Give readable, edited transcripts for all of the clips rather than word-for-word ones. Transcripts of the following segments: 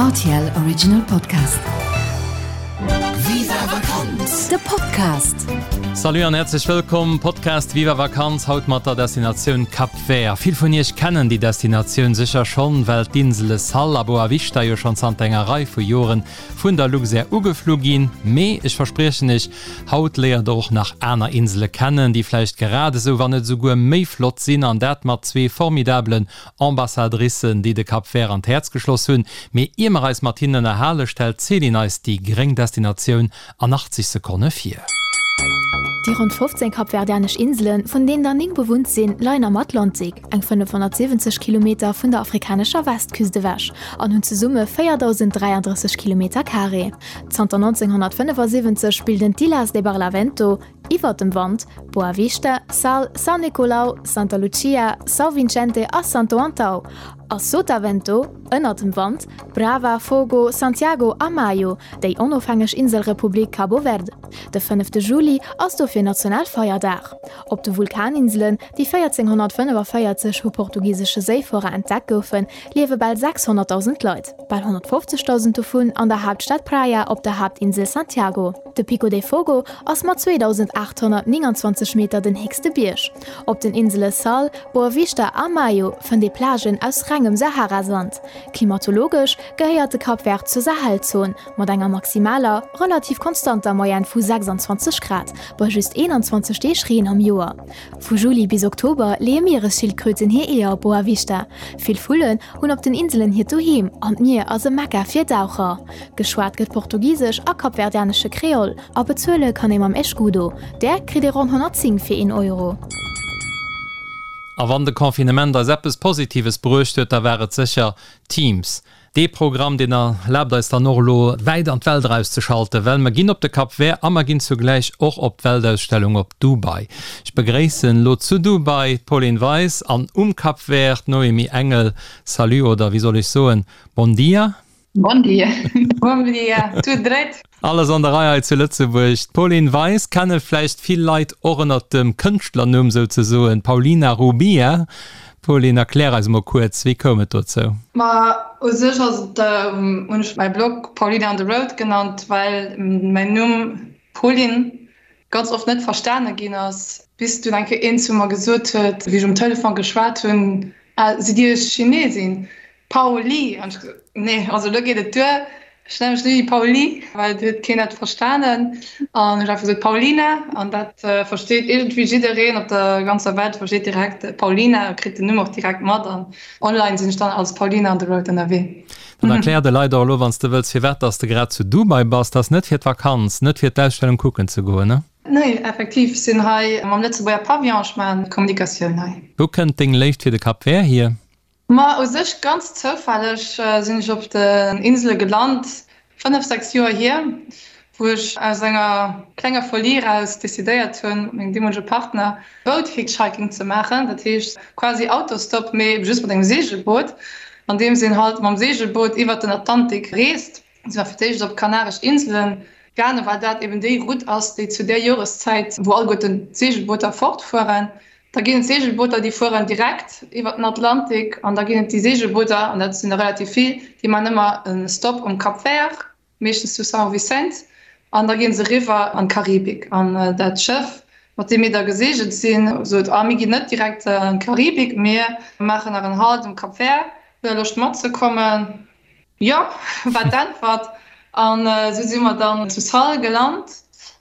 Rtl Original Podcast. Viva Vakanz! De Podcast. Salut an häerzlech wëllkomm Podcast Viva Vakanz haut mat der Destinatioun Cap Vert. Vill vun iech kennen déi Destinatioun sécher schonn, well d'Insele Sal a Boa Vista jo schonn zanter enger Rei vu Joren vun der Luxair ugeflu ginn. Mee ech verspriechen iech, haut léiert der och nach aner Insele kennen, déi vläicht grad esou, wann net esouguer méi flott sinn an dat mat zwee formidabelen Ambassadricen, déi de Cap Vert an d'Häerz geschloss hunn. Mee ier mer eis mat hinnen ënnerhale stellt d'Céline eis déi gréng Destinatioun an 80 Sekonne vir. Déi ronn 15 kapverdianesch Inselen, vun deenen der 9 bewunnt sinn, leien am Atlantik, eng 570 Kilometer vun der afrikanescher Westküst ewech, an hunn zesumme 4.033 Kilometer Carré. Zanter 1975 bilden d'Ilhas de Barlavento, Iwwer dem Wand, Boa Vista, Sal, São Nicolau, Santa Lucia, São Vicente a Santo Antão, a Sotavento, Ënner dem Wand, Brava, Fogo, Santiago a Maio, déi onofhängeg Inselrepublik Cabo Verde. De fënnefte Juli ass dofir Nationalfeierdag. Op de Vulkaninselen, déi 1445 vu portugisesche Séifuerer entdeckt goufen, liewe bal 600.000 Leit, bal 150.000 dovun an der Haaptstad Praia op der Haaptinsel Santiago. De Pico de Fogo ass mat 2.829 Meter den héchste Bierg. Op den Insele Sal, Boa Vista a Maio fënnt ee Plagen aus rengem Sahara-Sand. Klimatologesch gehéiert de Cap Vert zur Sahelzon, mat enger maximaler, relativ konstanter Moyenne vu 26 Grad bei just 21 Deeg Reen am Joer. Vu Juli bis Oktober leeë Mieresschildkröten hir Eeër op Boa Vista. Vill Vullen hunn op den Inselen hiert Doheem an d'Mier ass e Mekka fir Daucher. Geschwat gëtt Portugisesch a kapverdianesche Kreol a bezuele kann ee mam Escudo. Där kritt ee ronn 110 fir een Euro. A wann de Confinement eis eppes Positives bruecht huet, da war et sécher Teams. Dee Programm, deen erlaabt eis dann och elo wäit an d'Welt erauszeschalten, well mer ginn op de Cap Vert a mer ginn zugläich och op d'Weltausstellung op Dubai. Ech begréissen elo zu Dubai d'Pauline Weis an um Cap Vert d'Noémie Engel. Salut oder wéi soll ech soen, Bon dia? Bon dia. Bon dia, tout dréit. Alles an der Rei hei zu Lëtzebuerg. D'Pauline Weis kenne vläicht vill Leit och ënnert dem Kënschtlernumm souzesoen Paulina Rubia. Pauline, erklär eis emol kuerz, wéi koum et dozou? Ma u sech ass et, hunn ech mäi Blog Paulina on the Road genannt, well mäin Numm Pauline ganz oft net verstane ginn ass, bis dunn eng Kéier een zu mer gesot huet, wéi ech um Telefon geschwat hunn, Ah, sidd Dir Chinesin? Pauli! An ech gesot, Nee, also elo geet et duer, ech nenne mech net méi Pauli, well et huet keen dat verstanen. An ech hu einfach gesot, Paulina, an dat versteet iergendwéi jiddereen op der ganzer Welt, versteet direkt Paulina a kritt den Numm och direkt mat. An online sinn ech dann als Paulina on the road ënnerwee. Dann erklär de Leit och elo, wann s de wëlls, firwat dass de grad zu Dubai bass. Dat ass net fir d'Vakanz, net fir d'Ausstellung kucken ze goen, ne? Nee, effektiv, ech sinn hei mam Lëtzebuerger Pavillon, ech maachen d'Kommunikatioun hei. Wou kënnt deng Léift fir de Cap Vert hier? Ma u sech ganz zoufälleg sinn ech op den Insele gelant, 5, 6 Joer hier, wou ech aus enger klenger Folie eraus decidéiert hunn, mat mengem deemolege Partner Boat-Hitchhiking ze maachen. Dat heescht quasi Autostop, mee ebe just mat engem Seegelboot, andeems een halt mam Seegelboot iwwert den Atlantik reest. Si war fir d'éischt op d'Kanaresch Inselen gaangen, well dat eben déi Route ass, déi zu där Joreszäit, wou alleguerten d'Seegelbooter fortfueren, Da ginn et Seegelbooter, déi fueren direkt iwwer den Atlantik an da ginn et déi Seegelbooter, an dat sinn der relativ vill, déi maachen ëmmer e Stop um Cap Vert, meeschtens zu São Vicente, an da gi se eriwwer an d'Karibik. An dat Schëff, mat deem mir da geseegelt sinn, sot, Ah, mir ginn net direkt an d'Karibik, mir maachen nach en Halt um Cap Vert, hutt Der Loscht matzekommen? Jo, war d'Äntwert. An esou si mer dann zu Sal gelant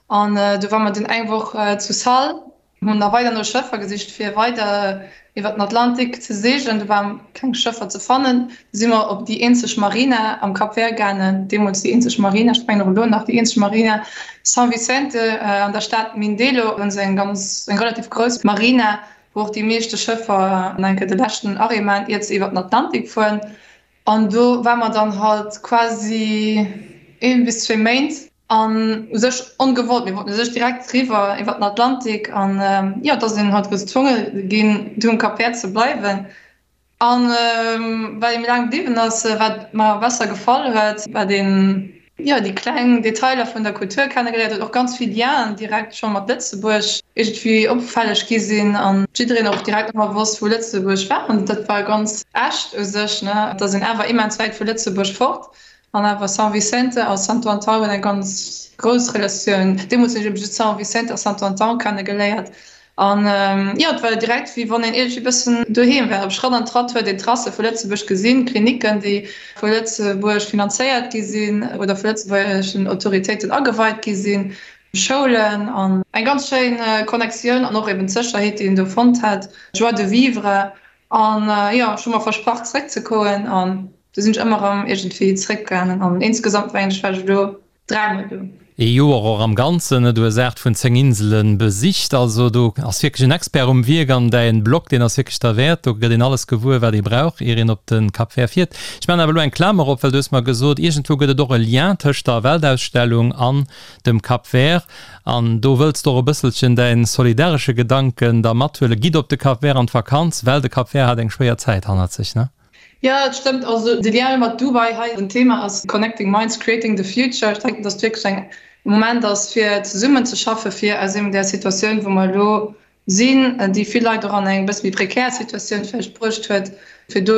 an du ware mer dunn eng Woch zu Sal. Hunn da weider no Schëffer gesicht fir weider iwwer den Atlantik ze seegelen. Do waren keng Schëffer ze fannen. Du si mer op déi eenzeg Marina am Cap Vert gaangen, deemools déi eenzeg Marina, ech mengen och elo nach déi eenzeg Marina, São Vicente an der Stad Mindelo hunn se eng ganz, eng relativ grouss Marina, wou och déi meeschte Schëffer an eng Kéier de leschten Arrêt maachen, iert se iwwer den Atlantik fueren. An do ware mer dann halt quasi een bis zwee Méint. An u sech ongewollt, mir wollten u sech direkt riwwer iwwer den Atlantik an jo, da sinn halt gezwonge ginn do um Cap Vert ze bleiwen. An well ee méi laang bliwwen ass, wat mer besser gefall huet, wat een. Jo, déi kleng Detailer vun der Kultur kennegeléiert huet, och ganz vill Lienen direkt scho mat Lëtzebuerg iergendwéi opfälleg gi sinn an jiddereen och direkt ëmmer wosst, wou Lëtzebuerg war. An dat war ganz echt u sech, ne? Et ass een awer immens wäit vu Lëtzebuerg fort an awer São Vicente a Santo Antão hunn eng ganz grouss Relatioun. Deemools hunn ech eben just São Vicente a Santo Antão kennegeléiert An jo, et war direkt wéi wann een iergendwéi bëssen doheem wär. Op Schratt an Tratt huet een d'Tracë vu Lëtzebuerg gesinn, Klinicken, déi vu Lëtzebuerg finanzéiert gi sinn oder vu lëtzebuergeschen Autoritéiten ageweit gi sinn, Schoulen an eng ganz schéin Connectioun an och eben d'Sécherheet, déi een do fonnt hat, d'Joie de vivre. An jo, ech hu mer versprach zréckzekoen an du sinn ech ëmmer erëm iergendwéi zréckgaangen an insgesamt mengen ech war ech elo Dräimol do. Ee Joer och am Ganzen, ne? Du hues 8 vun 10 Insele besicht, also do ass wierklech en Expert um Wierk an däin Blog, deen ass wierklech derwäert. Do gëtt een alles gewuer, wat ee brauch, ier een op de Cap Vert fiert. Ech maachen awer elo eng Klamer op, well du hues mer gesot, iergendwou gëtt et och e Lien tëscht der Weltausstellung an dem Cap Vert an do wëlls de och e bësselchen däin solidaresche Gedanken da mathuelen. Gitt op de Cap Vert an d'Vakanz, well de Cap Vert hat eng schwéier Zäit hannert sech, ne? Jo, et stëmmt. Also de Lien mat Dubai hei, den Thema ass Connecting Minds, Creating the Future. Ech denken, datt et wierklech eng Moment ass, fir zesummen ze schaffen, fir aus eben där Situatioun, wou mer elo sinn, déi vill Leit och an eng e bësse méi prekär Situatioun vläicht bruecht huet, fir do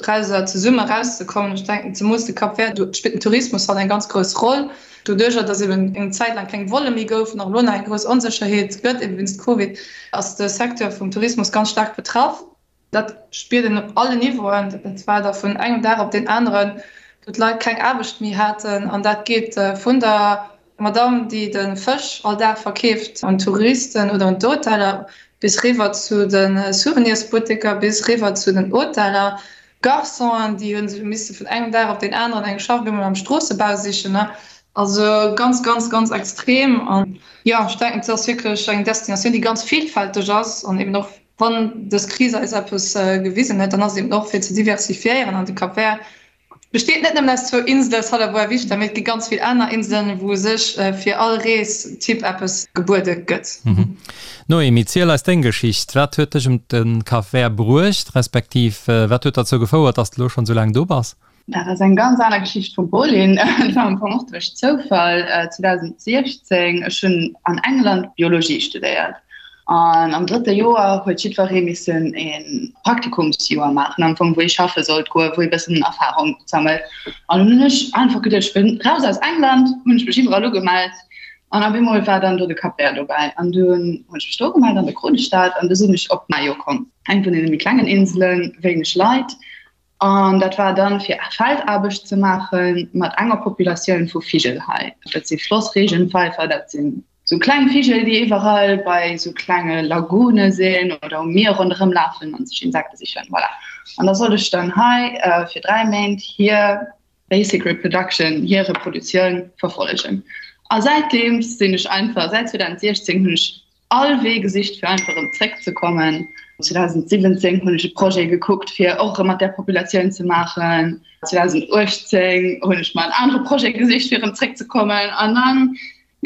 drauser zesumme erauszekommen. Ech denken, zemools de Cap Vert, do spillt den Tourismus halt eng ganz grouss Roll. Doduerjer, datt eben eng Zäit laang keng Volle méi goufen, och elo nach eng grouss Onsécherheet gëtt, eben wéinst Covid, ass de Secteur vum Tourismus ganz staark betraff. Dat spiert een op allen Niveauen. Dat war da vun engem Dag op deen aneren, wou d'Leit keng Aarbecht méi haten. An dat geet vun der Madamm, déi de Fësch all Dag verkeeft un d'Touristen oder un d'Hoteller, bis riwwer zu de Souvenirsbutteker, bis riwwer zu den Hoteller. Garçonen, déi hu sech misse vun engem Dag op deen aneren eng Schaff op eemol am Stroossebau sichen. Also ganz, ganz, ganz extrem. An jo, ech denken, et ass wierklech eng Destinatioun, déi ganz villfälteg ass an eben och Wann dës Kris eis eppes gewisen huet, dann ass et eben och fir ze diversifiéieren. An de Cap Vert besteet net nëmmen aus zwou Insele, Sal a Boa Vista, mee et gi ganz vill aner Inselen, wou u sech fir all Reestyp eppes gebuede gëtt. Noémie, ziel eis deng Geschicht. Wat huet dech ëm de Cap Vert bruecht, respektiv wat huet derzou gefouert, dass de elo schonn esou laang do bass? Dat ass eng ganz aner Geschicht vum Pauline. Dat war am Fong och duerch Zoufall 2016. Ech hunn an England Biologie studéiert an am drëtte Joer huet jiddweree missen e Praktikumsjoer maachen, am Fong wou ee schaffe sollt goen, wou ee bëssen Erfarung sammelt. An dunn hunn ech einfach geduecht, ech wëll raus aus England, hunn ech mech iwwerall ugemellt an op eemol war dann do de Cap Vert dobäi. An dunn hunn ech mech do ugemellt an der Kronestad an du sinn ech op Maio komm, eng vun deene méi klengen Inselen, wéineg Leit. An dat war dann fir Feldaarbecht ze maache mat enger Populatioun vu Vigel hei. Dat si Flossregenpfeifer, dat sinn sou kleng Vigel, déi iwwerall bei sou klenge Lagune sinn oder um Mier ronderëm lafen an sech Insekte sichen. Voilà. An da sollt ech dann hei fir 3 Méint hir basic reproduction, hir Reprodutioun verfollegen. A säitdeems sinn ech einfach, säit 2016 hunn ech all Wee gesicht fir einfach erëm zréck ze kommen. 2017 hunn ech e Projet gekuckt fir och erëm mat där Populatioun ze maachen. 2018 hunn ech mer en anere Projet gesicht fir erëm zréck ze kommen an dann,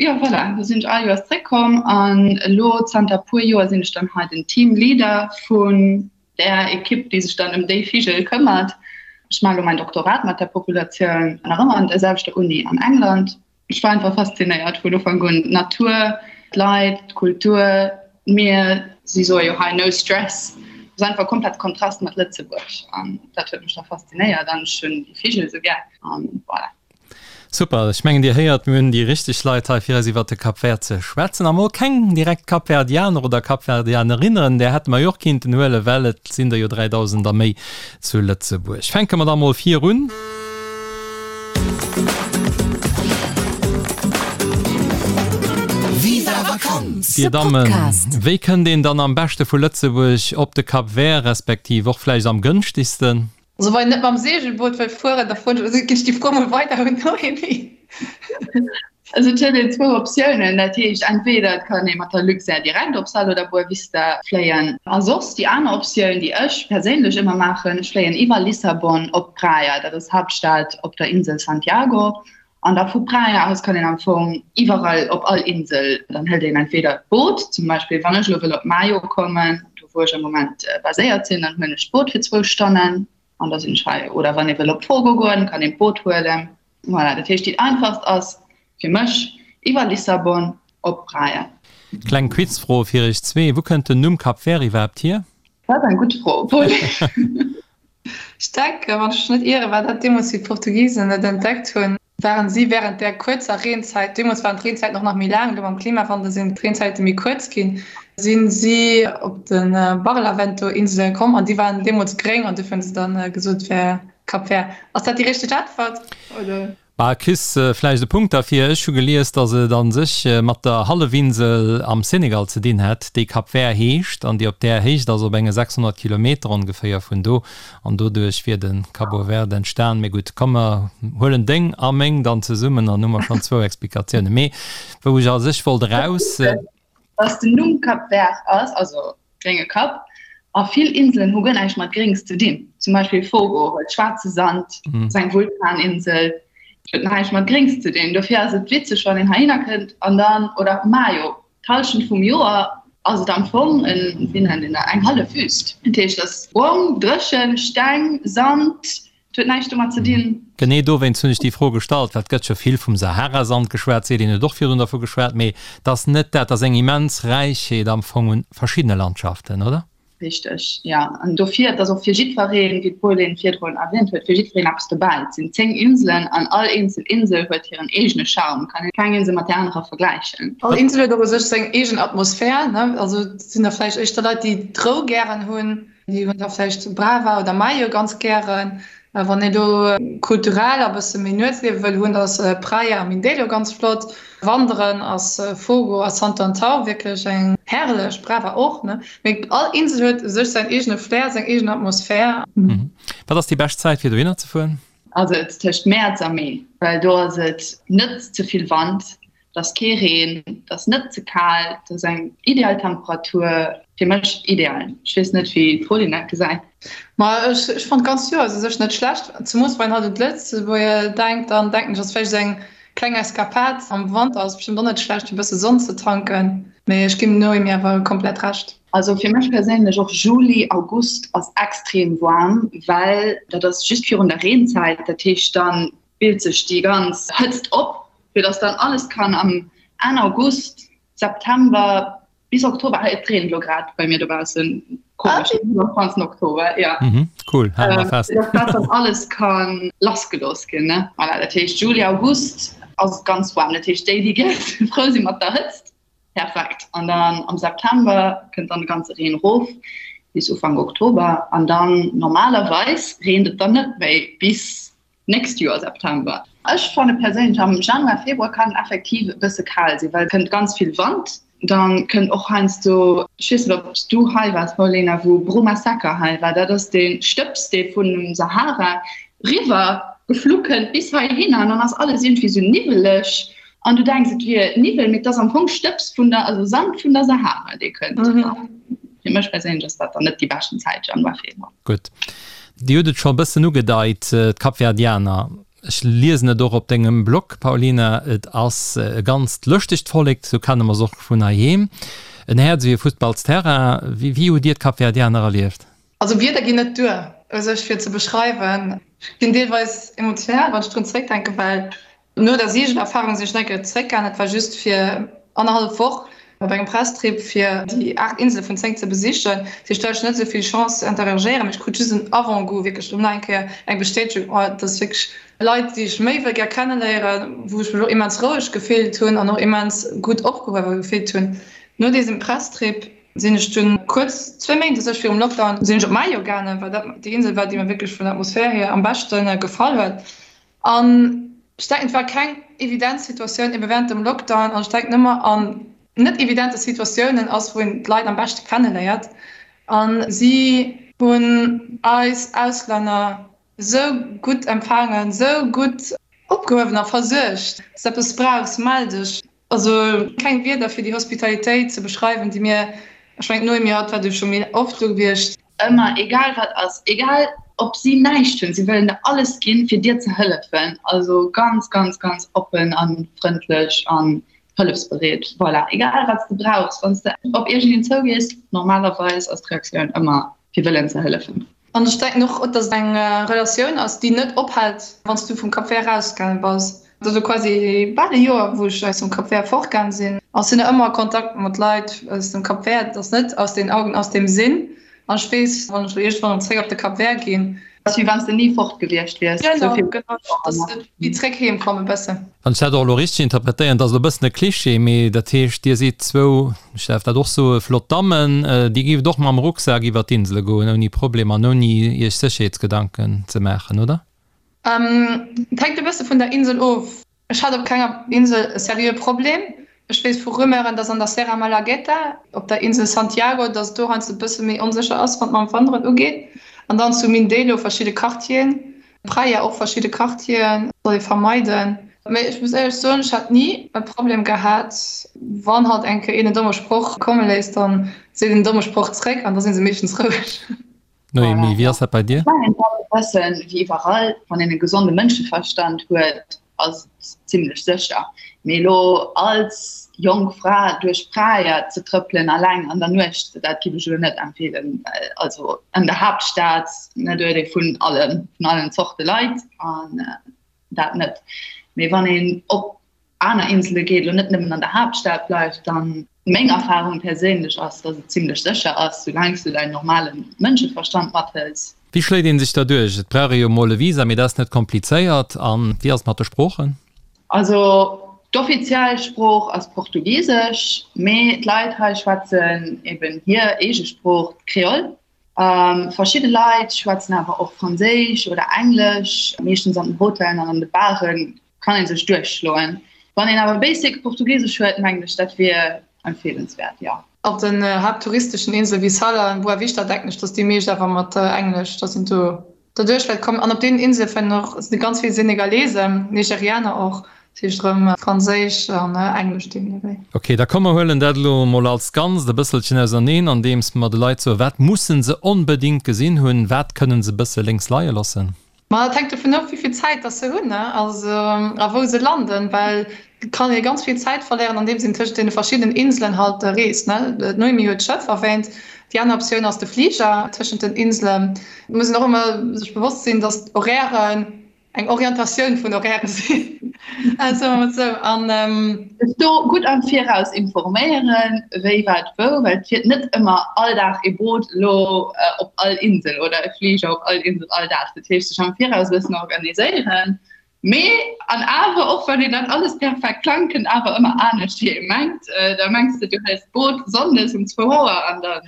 jo voilà, do sinn ech all Joers zréck komm an elo zanter puer Joer sinn ech dann hei den Team Leader vun där Ekipp déi sech dann ëm déi Vigel këmmert. Ech maache elo mäin Doktorat mat där Populatioun nach ëmmer an der selwechter Uni an England. Ech war einfach faszinéiert vun Ufank un. D'Natur, d'Leit, d'Kultur, d'Mier, si soe jo hei no stress. Et ass einfach komplett Kontrast mat Lëtzebuerg an dat huet mech da faszinéiert an ech hunn déi Vigel esou gär an voilà. Super, ech mengen dir héiert, mir hunn déi richteg Leit hei fir eis iwwert de Cap Vert ze schwätzen. A mol keng direkt Kapverdianer oder Kapverdianerinnen, där hätte mer jo och kinnten huelen, well et sinn der jo 3.000 a méi zu Lëtzebuerg. Fänke mer da mol vir un. Viva Vakanz, Dir de Dammen, Podcast. wéi kënnt een dann am beschte vu Lëtzebuerg op de Cap Vert, respektiv och vläicht am gënschtegsten? Also wann een net mam Segelboot wëll fueren, da froen ech, ginn ech déi Fro mol weider un d'Noémie. Also et huet een zwou Optiounen, dat heescht entweder et kann ee mat der Luxair direkt op Sal oder Boa Vista fléien a soss déi aner Optioun, déi ech perséinlech ëmmer maachen, ech fléien iwwer Lissabon op Praia, dat ass d'Haaptstad op der Insel Santiago an da vu Praia aus kann een am Fong iwwerall op all Insel, dann hëlt een entweder d'Boot, zum Beispill wann ech elo wëll op Maio kommen, do wou ech am Moment baséiert sinn, dann huelen ech d'Boot fir zwou Stonnen an da sinn ech hei oder wann ee wëll op Fogo goen, kann een d'Boot huelen. Voilà, dat heescht déi einfachst ass fir mech iwwer Lissabon op Praia. Kleng Quizfro fir iech zwee, Wou kënnt den Numm Cap Vert iwwerhaapt hier? Dat ass eng gutt Fro, Paul. Ech denken, wann ech mech net ieren, war dat deemools, wéi d'Portugisen et entdeckt hunn, waren si wärend där kuerzer Reenzäit, deemools waren d'Reenzäiten och nach méi laang, elo mam Klimawandel sinn d'Reenzäite méi kuerz ginn, si si op de Barlavento-Insele komm an déi waren deemools gréng an dofir hunn se dann gesot, et wär Cap Vert. Ass dat déi richteg Äntwert, oder? Bah, kriss vläicht e Punkt derfir. Ech hu gelies, datt et a sech mat der Hallefinsel am Senegal ze dinn hätt, déi Cap Vert heescht an déi op där Héicht ass, op enge 600 Kilometer ongeféier vun do. An doduerch wier de Cabo Verde entstan. Mee gutt, komm mer huelen deng a meng dann zesummen, dann hu mer schonn zwou Explikatiounen. Mee wou ech a sech wollt eraus. Datt den Numm Cap Vert ass, also Grénge Kapp. A vill Inselen hu guer näischt mat Gréngs ze dinn. Zum Beispill Fogo huet schwaarze Sand, ass eng Vulkaninsel, huet näischt mat Gréngs ze dinn. Dofir ass et witzeg, wann een heihinner kënnt an dann, oder Maio, d'Hallschent vum Joer ass et am Fong en, wéi nennt een dat, eng hallef Wüst. Dat heescht, et ass brong, dréchen, Steng, Sand, Et huet näischt domat ze dinn. Genee dowéinst hunn ech déi Fro gestallt, well et gëtt jo vill vum Sahara-Sand geschwat, d'Céline huet och virdrun dervu geschwat, mee et ass net dat, et ass eng immens Räichheet am Fong un verschiddene Landschaften, oder? Richteg, jo. An dofir, et ass och fir jiddwereen, wéi d'Pauline virdrun erwähnt huet, fir jiddwereen eppes dobäi. Et sinn 10 Inselen an all eenzel Insel huet hiren eegene Charme, kann een keng Insel mat där anerer vergläichen. All Insel huet och u sech seng eegen Atmosphär, ne? Also et sinn der vläicht éischter Leit, déi d'Rou gären hunn, Déi hunn da vläicht Brava oder Mayo ganz gären. Wann een do kulturell a bësse méi Nuetsliewe wëll hunn, da ass Praia a Mindelo ganz flott. Wanderen ass Fogo a Santo Antão wierklech eng herrlech, Brava och, ne? Mee all Insel huet u sech säin eegene Flair, seng eegen Atmosphär. Wat ass déi bescht Zäit fir dohinner ze fueren? Also et tëscht Mäerz a Mee, well do ass et net ze vill Wand, Et ass kee Reen, et ass net ze kal, et ass eng ideal Temperatur, fir mech ideal. Ech weess net wéi d'Pauline dat gesäit. Ma ech ech fannt d'ganzt Joer ass u sech net schlecht, zemoos wann een halt un d'Lëtzebuerger denkt, dann denken ech ass vläicht esou eng kleng Eskapad am Wanter ass bestëmmt och net schlecht fir bësse Sonn ze tanken, mee ech ginn dem Noémie awer komplett Recht. Also fir mech perséinlech och Juli, August ass extrem waarm, well dat ass just virun der Reenzäit, dat heescht dann bilt sech déi ganz Hëtzt op, fir dass dann alles kann am Enn August, September bis Oktober, hei et reent elo grad bei mir dobaussen, komesch, am ganzen Oktober, ja. Mhm, cool, hale mer fest. Dass dat dann alles ka lassgelooss ginn, ne. Voilà, dat heescht Juli, August ass et ganz waarm, dat heescht déi, déi gär frou si mat der Hëtzt, perfekt. An dann am September kënnt dann de ganze Reen erof bis Ufank Oktober an dann normalerweis reent et dann net méi bis Nächst Joer September. Ech fanne perséinlech am Januar, Februar kann effektiv e bësse kal sinn, well et kënnt ganz vill Wand. Dann kënnt och heiansdo, ech weess net ob s du hei waars Paulina, wou Bruma Secca hei war, dat ass dee Stëbs dee vun dem Sahara riwwer geflu kënnt bis heihinner an dann ass alles iergendwéi sou niwweleg an du denks et wier Niwwel, mee et ass am Fong Stëbs vun der, also Sand vun der Sahara dee kënnt. Fir mech perséinlech ass dat dann net déi beschten Zäit, Januar, Februar. Gutt. Dir hutt et scho e bëssen ugedeit, d'Kapverdianer, ech liesen et och op dengem Blog, Paulina, et ass e ganzt lëschtegt Vollek, sou kenne mer se och vun heiheem. En Häerz ewéi e Fussballsterrain. Wéi hutt Dir d'Kapverdianer erlieft? Also Wierder ginn net duer u sech fir ze beschreiwen. Ech ginn deelweis emotional, wann ech drun zeréckdenken, well No der Seegelerfarung sinn ech nach eng Kéier zeréckgaangen. Dat war just fir annerhallef Woch op engem Presstrip fir déi 8 Insele vun 10 ze besichen. Dat heescht, do hat ech net esou vill Chance ze interagéieren, mee ech krut just en Avant-goût, wierklech erëm nach eng Kéier eng Bestätegung, oh, dat ass wierklech Leit, déi ech méi wëll gär kenneléieren, wou ech mech och immens roueg gefillt hunn an och immens gutt opgehuewe gefillt hunn. No dësem Presstrip sinn ech dunn kuerz, zwéi Méint u sech virum Lockdown, sinn ech op Maio gaangen, well dat déi Insel war, déi mir wierklech vun der Atmosphär hier am beschte gefall huet. An ech denken, et war keng evident Situatioun ebe während dem Lockdown. An ech denken ëmmer an net evidente Situatiounen ass, wou een d'Leit am beschte kenneléiert. A si hunn eis Auslänner esou gutt empfaangen, esou gutt opgehuewen a versuergt. Wann s de eppes brauchs, mell dech. Also keng Wierder fir déi Hospitalitéit ze beschreiwen, déi mir, ech mengen d'Noémie hatt war du scho méi oft do gewiescht. Ëmmer, egal wat ass, egal ob si näischt hunn, si wëllen der alles ginn, fir dir ze hëllefen. Also ganz, ganz, ganz oppen a frëndlech an hëllefsbereet. Voilà, egal wat s de brauchs, wann s de op iergendeen zougees, normalerweis ass d'Reaktioun ëmmer fir wëllen ze hëllefen. An ech denken och, dass et eng Relatioun ass, déi net ophält, wann s du vum Cap Vert erausgaange bass. Et ass elo quasi bal e Joer, wou ech aus dem Cap Vert fortgaange sinn. An ech sinn nach ëmmer a Kontakt mat Leit aus dem Cap Vert. Et ass net aus den Augen, aus dem Sinn. An ech weess, wann ech elo iergendwann erëm zréck op de Cap Vert ginn. Ass wéi wann s de ni fort gewiescht wiers. Genau, genau. Et ass wéi zréck heem kommen e bëssen. Wann ech dat och elo richteg interpretéieren, dat ass elo e bëssen e Cliché, mee dat heescht, Dir sidd zwou, ech däerf dat och soen, flott Dammen, Dir géift och mam Rucksak iwwer d'Insele goen ouni Problem an ouni Iech Sécherheetsgedanken ze maachen, oder? Et hänkt e bësse vun der Insel of. Ech hat op kenger Insel e seriöe Problem. Ech weess vu Rumeuren, dass an der Serra Malagueta, op der Insel Santiago, dass et do heiansdo e bësse méi onsécher ass, wann et mam Wanderen ugeet. An dann zu Mindelo verschidde Quartieren, Praia och verschidde Quartieren soll ee vermeiden. Mee ech muss éierlech soen, ech hat ni e Problem gehat. Wann halt eng Kéier een en domme Sproch komme léisst, dann seet een en domme Sproch zréck an da si se meeschtens roueg. Noémie, wéi ass dat bei dir? Ech mengen, et ass e bëssen wéi iwwerall, wann een e gesonde Mënscheverstand huet, ass et zimlech sécher. Mee elo als jonk Fra duerch Praia ze trëppelen alleng an der Nuecht, dat giff ech elo net empfeelen. Well also an der Haaptstad, ne, do huet ee vun allen, vun allen Zorte Leit an dat net. Mee wann een op aner Insele geet, elo net nëmmen an der Haaptstad bleift, dann meng Erfahrung perséinlech ass, dass et zimlech sécher ass, soulaang s du däin normale Mënscheverstand mathëls. Wéi schléit een sech da duerch? Et brauch ee jo mol e Visa, mee dat ass net komplizéiert. A wéi ass et mat de Sproochen? Also d'offiziell Sprooch ass Portugisesch, mee d'Leit hei schwätzen eben hir eege Sprooch, d'Kreol. Verschidde Leit schwätzen awer och Franséisch oder Englesch, meeschtens an den Hotellen an an de Baren kann een sech duerchschloen. Wann een awer basic Portugisesch huet, mengen ech dat wier empfeelenswäert, jo. Op den haapttouristeschen Insele wéi Sal an Boa Vista denken ech, dass déi meescht awer mat Englesch, dass een do derduerch wäert kommen. An op deenen Insele fannen och sinn ganz vill Senegalesen, Nigerianer och, dat heescht erëm Franséisch an Englesch deemno wéi. Ok, da komm mer huelen dat elo emol als Ganzt e bësselchen auserneen, andeems mer de Leit soen, wat mussen se onbedéngt gesinn hunn, wat kënnen se e bësse lénks leie loossen. Ma dat hänkt dovun of, wéi vill Zäit dass se hunn, ne, also a wou se landen, well et kann ee ganz vill Zäit verléieren, andeems een tëschent deene verschiddenen Inselen halt reest, ne. D'Noémie huet d'Schëff erwähnt. Déi aner Optioun ass de Fliger tëschent den Inselen. Et muss een och ëmmer sech bewosst sinn, dass d'Horairen eng Orientatioun vun Horaire sinn, soe mer mol sou. An. Sech do gutt am Viraus informéieren, wéi, wat, wou, well et fiert net ëmmer all Dag ee Boot elo op all Insel oder e Fliger op all Insel all Dag. Dat heescht, sech am Viraus e bëssen organiséieren. Mee an awer, och wann een dat alles perfekt plangt, kënnt awer ëmmer anescht, wéi ee mengt. Da mengs de, du hëls d'Boot sonndes um zwou Auer an da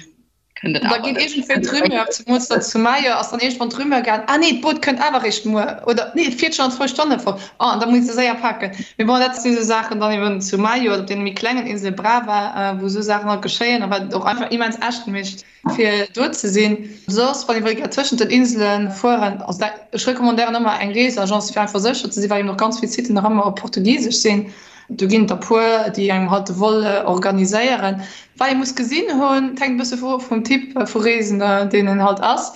kënnt et awer. Da geet iergendwéi d'Rumeur, zemools dann zu Maio ass dann iergendwann d'Rumeur gaang, ah nee, d'Boot kënnt awer eréischt muer oder nee, et fiert schonn an zwou Stonne fort, oh an da muss de séier paken. Mee bon, dat si sou Saachen dann eben zu Maio oder op deene méi klengen Insele Brava, wou sou Saachen halt geschéien a wat et och einfach immens echt mécht, fir do ze sinn. Soss, wann ee wëll gär tëschent den Insele fueren, also dat, ech recommandéieren ëmmer eng Reesagence, fir einfach sécher ze sinn, well eben och ganz vill Siten nach ëmmer op Portugisesch sinn. Do ginn et der puer, déi engem halt de Vol organiséieren. Wat ee muss gesinn hunn, et hänkt e bësse vu vum Typ vu Reesender, deen een halt ass.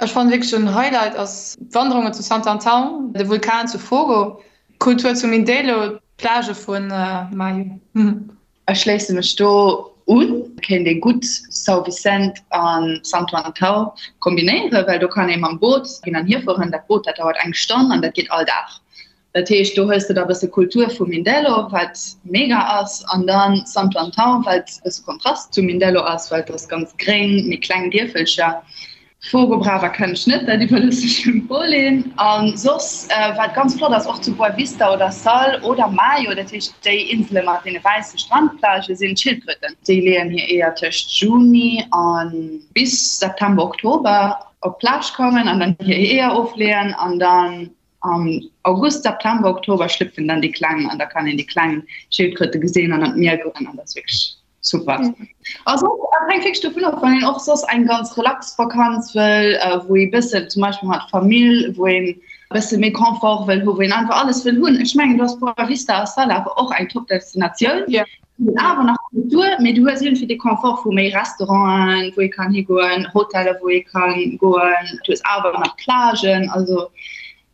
Ech fannen wierklech en Highlight ass d'Wanderungen zu Santo Antão, de Vulkan zu Fogo, d'Kultur zu Mindelo, d'Plagë vu Maio. Ech schléisse mech do un. Et kéint ee gutt São Vicente a Santo Antão kombinéieren, well do kann ee mam Boot hin an hier fueren. Dat Boot, dat dauert eng Stonn an dat geet all Dag. Dat heescht, do hues de da bësse Kultur vu Mindelo, wat mega ass, an dann Santo Antão, wat e bësse Kontrast zu Mindelo ass, well et ass ganz gréng, méi kleng Dierfelcher. Fogo Brava kennen ech net, dat iwwerlooss ech dem Pauline. A soss, wat ganz flott ass, och zu Boa Vista oder Sal oder Maio, dat heescht déi Insele mat deene wäisse Strandplagë, sinn d'Schildkröten. Déi leeën hir Eeër tëscht Juni a bis September, Oktober op d'Plage kommen an dann hir Eeër ofleeën an dann Am August, September, Oktober schlüpfen dann déi Kleng an da kann een déi kleng Schildkröte gesinn an an d'Mier goen an dat ass wierklech super. Also et hänkt wierklech dovun of, wann een och soss eng ganz relax Vakanz wëll, wou ee bëssen zum Beispill mat Famill, wou een e bësse méi Confort wëll hu, wou een einfach alles wëll hunn. Ech mengen do ass Boa Vista a Sal awer och eng top Destinatioun. Awer nach Kultur, mee du hues iergendwéi de Confort vu méi Restauranten, wou ee kann higoen, Hoteller, wou ee kann goen. Du hues awer nach Plagen. Also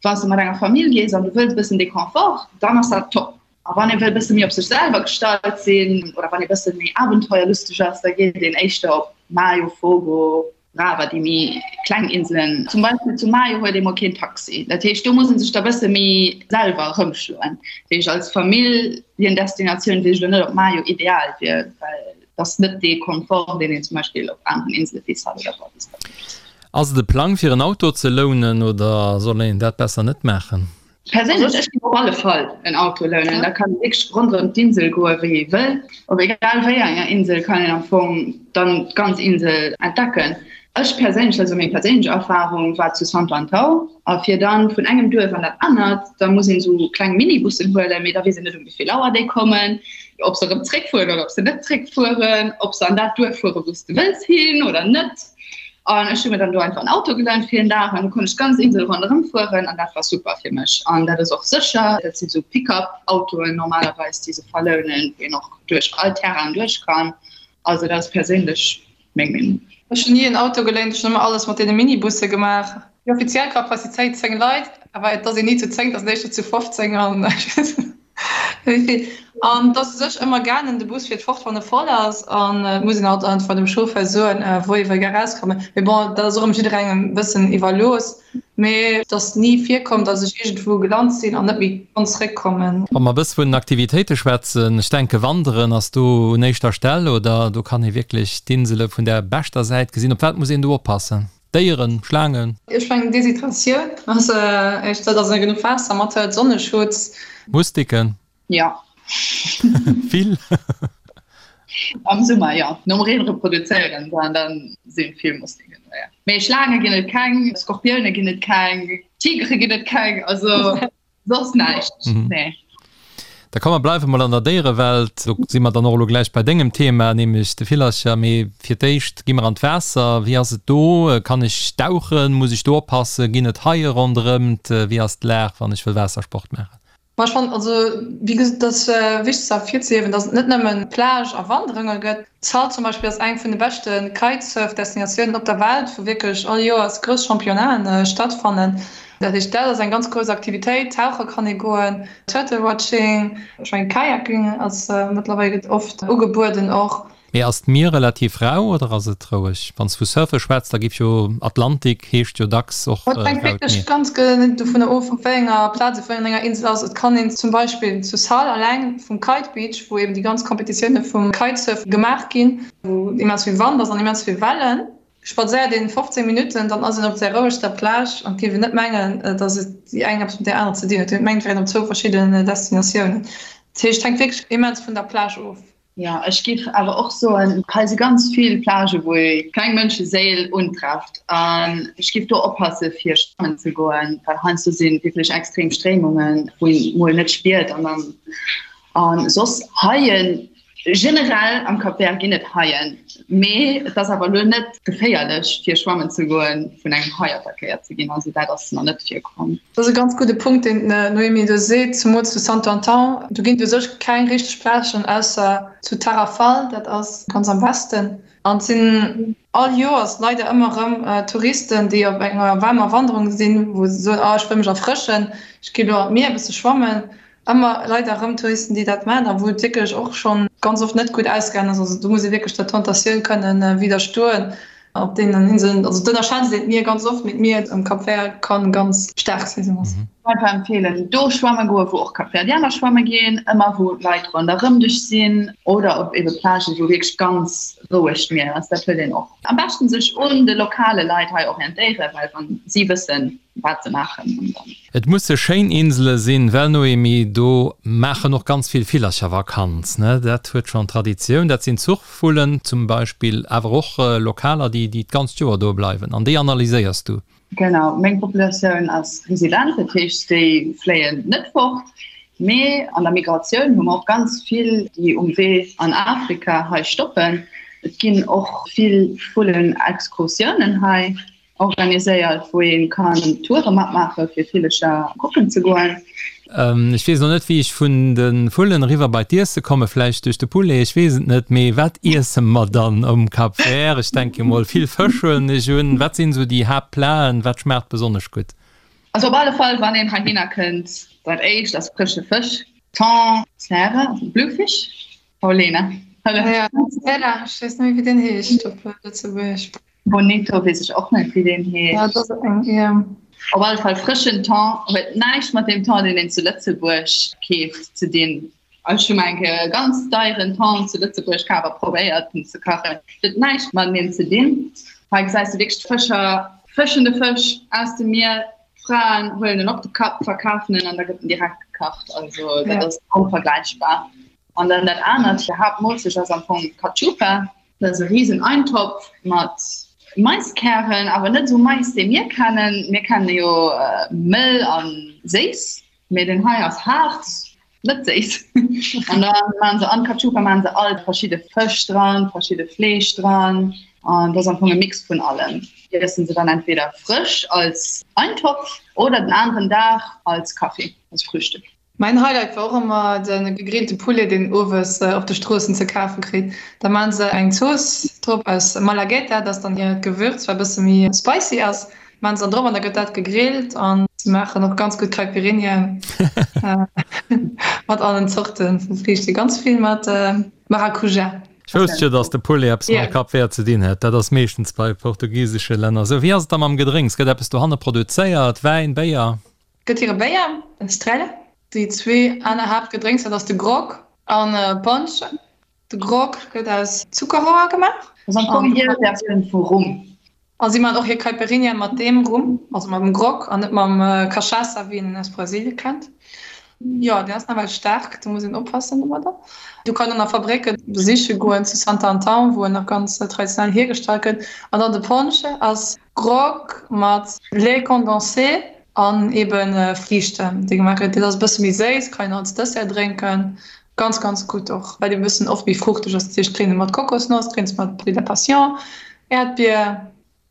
wann s de mat enger Famill gees an du wëlls e bëssen dee Confort, dann ass dat top. A wann ee wëll e bësse méi op sech selwer gestallt sinn oder wann ee bësse méi abenteuerlusteg ass, da geet een éischter op Maio, Fogo. Brava, déi méi kleng Inselen. Zum Beispill zu Maio huet ee mol keen Taxi. Dat heescht, do muss ee sech da bësse méi selwer erëmschloen. Dat heescht, als Familljen-Destinatioun weess ech elo net, ob Maio ideal wier, well et ass net dee Confort, deen een zum Beispill op aneren Insele wéi Sal oder Boa Vista huet. Ass et e Plang fir en Auto ze lounen oder soll een dat besser net maachen? Perséinlech, ech géif op alle Fall en Auto lounen. Da kann ee wierklech ronderëm d'Insel goe wéi ee wëll. Op egal wéi enger Insel kann een am Fong dann d'ganz Insel entdecken. Ech perséinlech, dat ass meng perséinlech Erfarung, war zu Santo Antão. A fir dann vun engem Duerf an dat anert, da muss een esou kleng Minibussen huelen, mee da weess een net um wéi vill Auer déi kommen, ob se erëm zréckfueren oder ob se net zréckfueren, ob se an dat Duerf fuere wou s de wëlls hin oder net. An ech hu mir dann do einfach en Auto gelount fir en Dag an du konnt ech d'ganz Insel ronderëm fueren an dat war super fir mech. An dat ass och sécher, dat sinn esou Pick-up-Autoen normalerweis, déi se verlounen, wou een och duerch all Terrain duerch kann. Also dat ass perséinlech meng Meenung. Ech hunn ni en Auto geléint, ech hunn ëmmer alles mat deene Minibusse gemaach. Déi offiziell Capacitéit 10 Leit, awer et ass een ni zu 10, et ass éischter zu 15 an ech weess net. Wéi An et ass u sech ëmmer gaangen, de Bus fiert fort, wann e voll ass. An et muss een alt einfach dem Chauffeur soen, wou ee wëll gär erauskommen. Mee bon, dat ass och erëm jidderengem e bëssen iwwerlooss. Mee et ass ni virkomm, datt ech iergendwou gelant sinn an net méi konnt zréckkommen. Wa mer e bësse vun den Aktivitéite schwätzen, ech denke Wanderen ass do un éischter Stell, oder? Do kann ee wierklech d'Insele vun der beschter Säit gesinn. Op wat muss een do oppassen? Déieren, Schlaangen? Ech mengen Deshydratioun ass éischter, dass ee genuch Waasser mat huet, Sonneschutz. Mustiken? Jo. Vill? Am Summer jo, nom Reen reproduzéieren se an dann si vill Mustiken do, jo. Mee Schlaange ginn et keng, Skorpioune ginn et keng, Tigere ginn et keng, also. Soss näischt, nee. Da komm mer bleiwe mol an der Déierewelt. Do si mer dann och elo gläich bei dengem Thema, nämlech de Villercher. Mee fir d'éischt gi mer an d'Waasser. Wéi ass et do? Kann ech dauchen? Muss ech do oppassen? Ginn et Haie ronderëmt? Wéi ass d'Lag, wann ech wëll Waassersport maachen? Ma ech fannen, also wéi gesot, et ass wichteg ze ervirzehiewen, datt et net nëmmen Plage a Wanderunge gëtt. Sal zum Beispill ass eng vun de beschte Kitesurf-Destinatiounen op der Welt, wou wierklech all Joers grouss Championnaten stattfannen. Dat heescht, dat ass eng ganz grouss Aktivitéit. Tauche kann ee goen, Turtle-Watching, ech mengen Kayaking ass mëttlerweil gëtt oft ugebueden och. Mee ass d'Mier relativ rau oder ass et roueg? Wann s vu Surfe schwätz, da giff jo Atlantik heescht jo dacks och raut Mier. Et hänkt wierklech ganz genee dovunner of, op wéi enger Plaz, op wéi enger Insel ass. Et kann een zum Beispill zu Sal alleng vum Kite Beach, wou eben déi ganz Kompetitioune vum Kitesurf gemaach ginn, wou immens vill Wand ass an immens vill Wellen, spadséiert een 15 Minutten, dann ass een op där rouegster Plage an et géif een net mengen, datt et déi eng eppes mat där anerer ze dinn huet. Et mengt, et wär een op zwou verschidden Destinatiounen. Dat heescht, et hänkt wierklech immens vun der Plage of. Jo, ech géif awer och soen, hei si ganz vill Plagë wou ee keng Mënscheséil untrefft an ech géif do oppasse fir schwammen ze goen, well heiansdo si wierklech extrem Stréimungen, wou een mol net spiert an dann a soss Haien generell am Cap Vert ginn et Haien, mee et ass awer elo net geféierlech fir schwammen ze goen, vun engem Hai attackéiert ze ginn, also dat ass nach net virkomm. Dat ass e ganz gudde Punkt, deen d'Noémie do seet, zemools zu Santo Antão. Do ginn et u sech keng richteg Plagen, ausser zu Tarrafal, dat ass ganz am Westen. An et sinn all Joers leider ëmmer erëm Touristen, déi op enger waarmer Wanderung sinn, wou se soen, oh ech wëll mech erfrëschen, ech gi lo an d'Mier e bësse schwammen. Ëmmer leider erëm Touristen, déi dat maachen a wou et wierklech och schonn ganz oft net gutt ausgaangen ass. Also do muss ee wierklech der Tentatioun kënnen widderstoen op deenen Inseln. Also d'ënnerschätzt een d'Mier ganz oft, mee d'Mier um Cap Vert kann ganz staark sinn. Sou ass. Einfach empfehlen, do schwamme goen, wou och Kapverdianer schwamme ginn, ëmmer wou Leit ronderëm dech sinn oder op ebe Plagen, wou wierklech ganz roueg d'Mier ass. Dat huet een och. Am beschten sech un de lokale Leit hei orientéieren, well wann si wëssen, wat se maachen an dann. Et musse schéin Insele sinn, well Noémie, do maachen och ganz vill Villercher Vakanz, ne? Dat huet schonn Traditioun. Dat sinn Zuchvullen zum Beispill, awer och Lokaler, déi déi d'ganzt Joer do bleiwen. An déi analyséiers du? Genau, meng Populatioun ass resident, dat heescht déi fléien net fort. Mee an der Migratioun hu mer och ganz vill, déi um Wee an Afrika hei stoppen. Et ginn och vill Vullenexkursiounen hei. Organiséiert, wou ee kann Toure matmaache fir Villecher kucken ze goen. Ech weess elo net wéi ech vun de Vullen eriwwer bei d'Iesse kommen, vläicht duerch de Poulet, ech weess et net. Mee wat iesse mer dann um Cap Vert? Ech denke mol vill Fësch huelen ech un. Wat sinn esou déi Haaptplaten? Wat schmaacht besonnesch gutt? Also op alle Fall wann een heihinner kënnt, dat éischt ass frësche Fësch, Thon, Zäre, also Bluefish, Paulina, hëllef. Ja, Zäre, ech weess net méi wéi deen heescht op Lëtzebuergesch. Bonito weess ech och net wéi deen heescht. Ja, dat ass eng, ja. Op alle Fall frëschen Thon huet näischt mat deem Thon, deen een zu Lëtzebuerg keeft, ze dinn. Ech hu mol eng Kéier e ganz deieren Thon zu Lëtzebuerg kaf a probéiert en ze kachen. Huet näischt mateneen ze dinn. Hei gesäis de wierklech d'Fëscher fëschen de Fësch aus dem Mier, d'Fraen huelen en op de Kapp, verkafen en an da gëtt en direkt gekacht. Also dat ass onvergläichbar. An dann dat anert, hir Haaptmoolzecht ass am Fong Cachupa. Dat ass e risen Eintopf mat Maiskären, awer net esou Mais, dee mir kennen. Mir kenne jo mëll a séiss, mee deen hei ass haart, net séiss. An da maachen se an d'Cachupa maachen se all verschidde Fësch dran, verschidde Fleesch dran. An dat ass am Fong e Mix vun allem. Iessen se dann entweder frësch als Eintopf oder den aneren Dag als Kaffi, als Frühstück. Mäin Highlight war och ëmmer de gegrillte Poulet deen een owes op de Stroossen ze kafe kritt. Da maan se eng Zooss drop aus Malagueta, dat ass dann hiert Gewürz wat e bësse méi spicy ass, maan se dann drop an da gëtt dat gegrillt an se maachen och ganz gutt Caipirinha mat allen Zorte vu Friichten, ganz vill mat Maracuja. Ech wousst jo, dass de Poulet eppes mam Cap Vert ze dinn hätt. Dat ass meeschtens bei portugisesche Länner esou. Wéi ass et da mam Gedrénks? Gëtt eppes dohanne produzéiert? Wäin, Béier? Gëtt hire Béier, den Estrella. Déi zwee aner Haaptgedrénks, dat ass de Grog an Ponche. De Grog gëtt aus Zuckerrohr gemaach. Dat ass am Fong hir Versioun vu Rum. A si maachen och hir Caipirinha mat deem Rum, also mam Grog an net mam Cachaça, wéi een en aus Brasilien kennt. Jo, deen ass nawell staark, do muss een oppassen domadder. Do kann een nach Fabrécke besiche goen zu Santo Antão, wou en nach ganz traditionell hiergestallt gëtt. An dann de Ponche ass Grog mat Lait condensé an eben Friichten, déi gemaach gëtt. Dat ass e bësse méi séiss, kann een als Dessert drénken. Ganz, ganz gutt och, well e bëssen oft méi fruchteg ass. Dat heescht, drénkt e mat Kokosnoss, drénkt mat Fruits de la Passion, Äerdbier,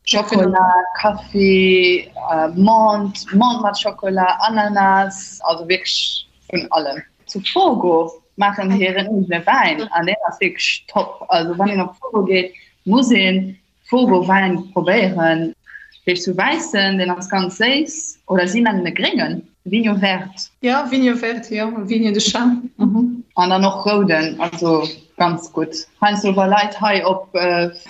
Schokola, Kaffi, Menthe, Menthe mat Schokola, Ananas, also wierklech vun allem. Zu Fogo maachen se hiren eegene Wäin an deen ass wierklech top. Also wann een op Fogo geet, muss een Fogo Wäin probéieren. Heescht sou wäissen, deen ass ganz séiss, oder si nennen e gréngen, Vinho Verde. Jo, Vinho Verde, jo, Vinho de Chá. An dann och rouden, also ganz gutt. Heiansdo wa Leit hei op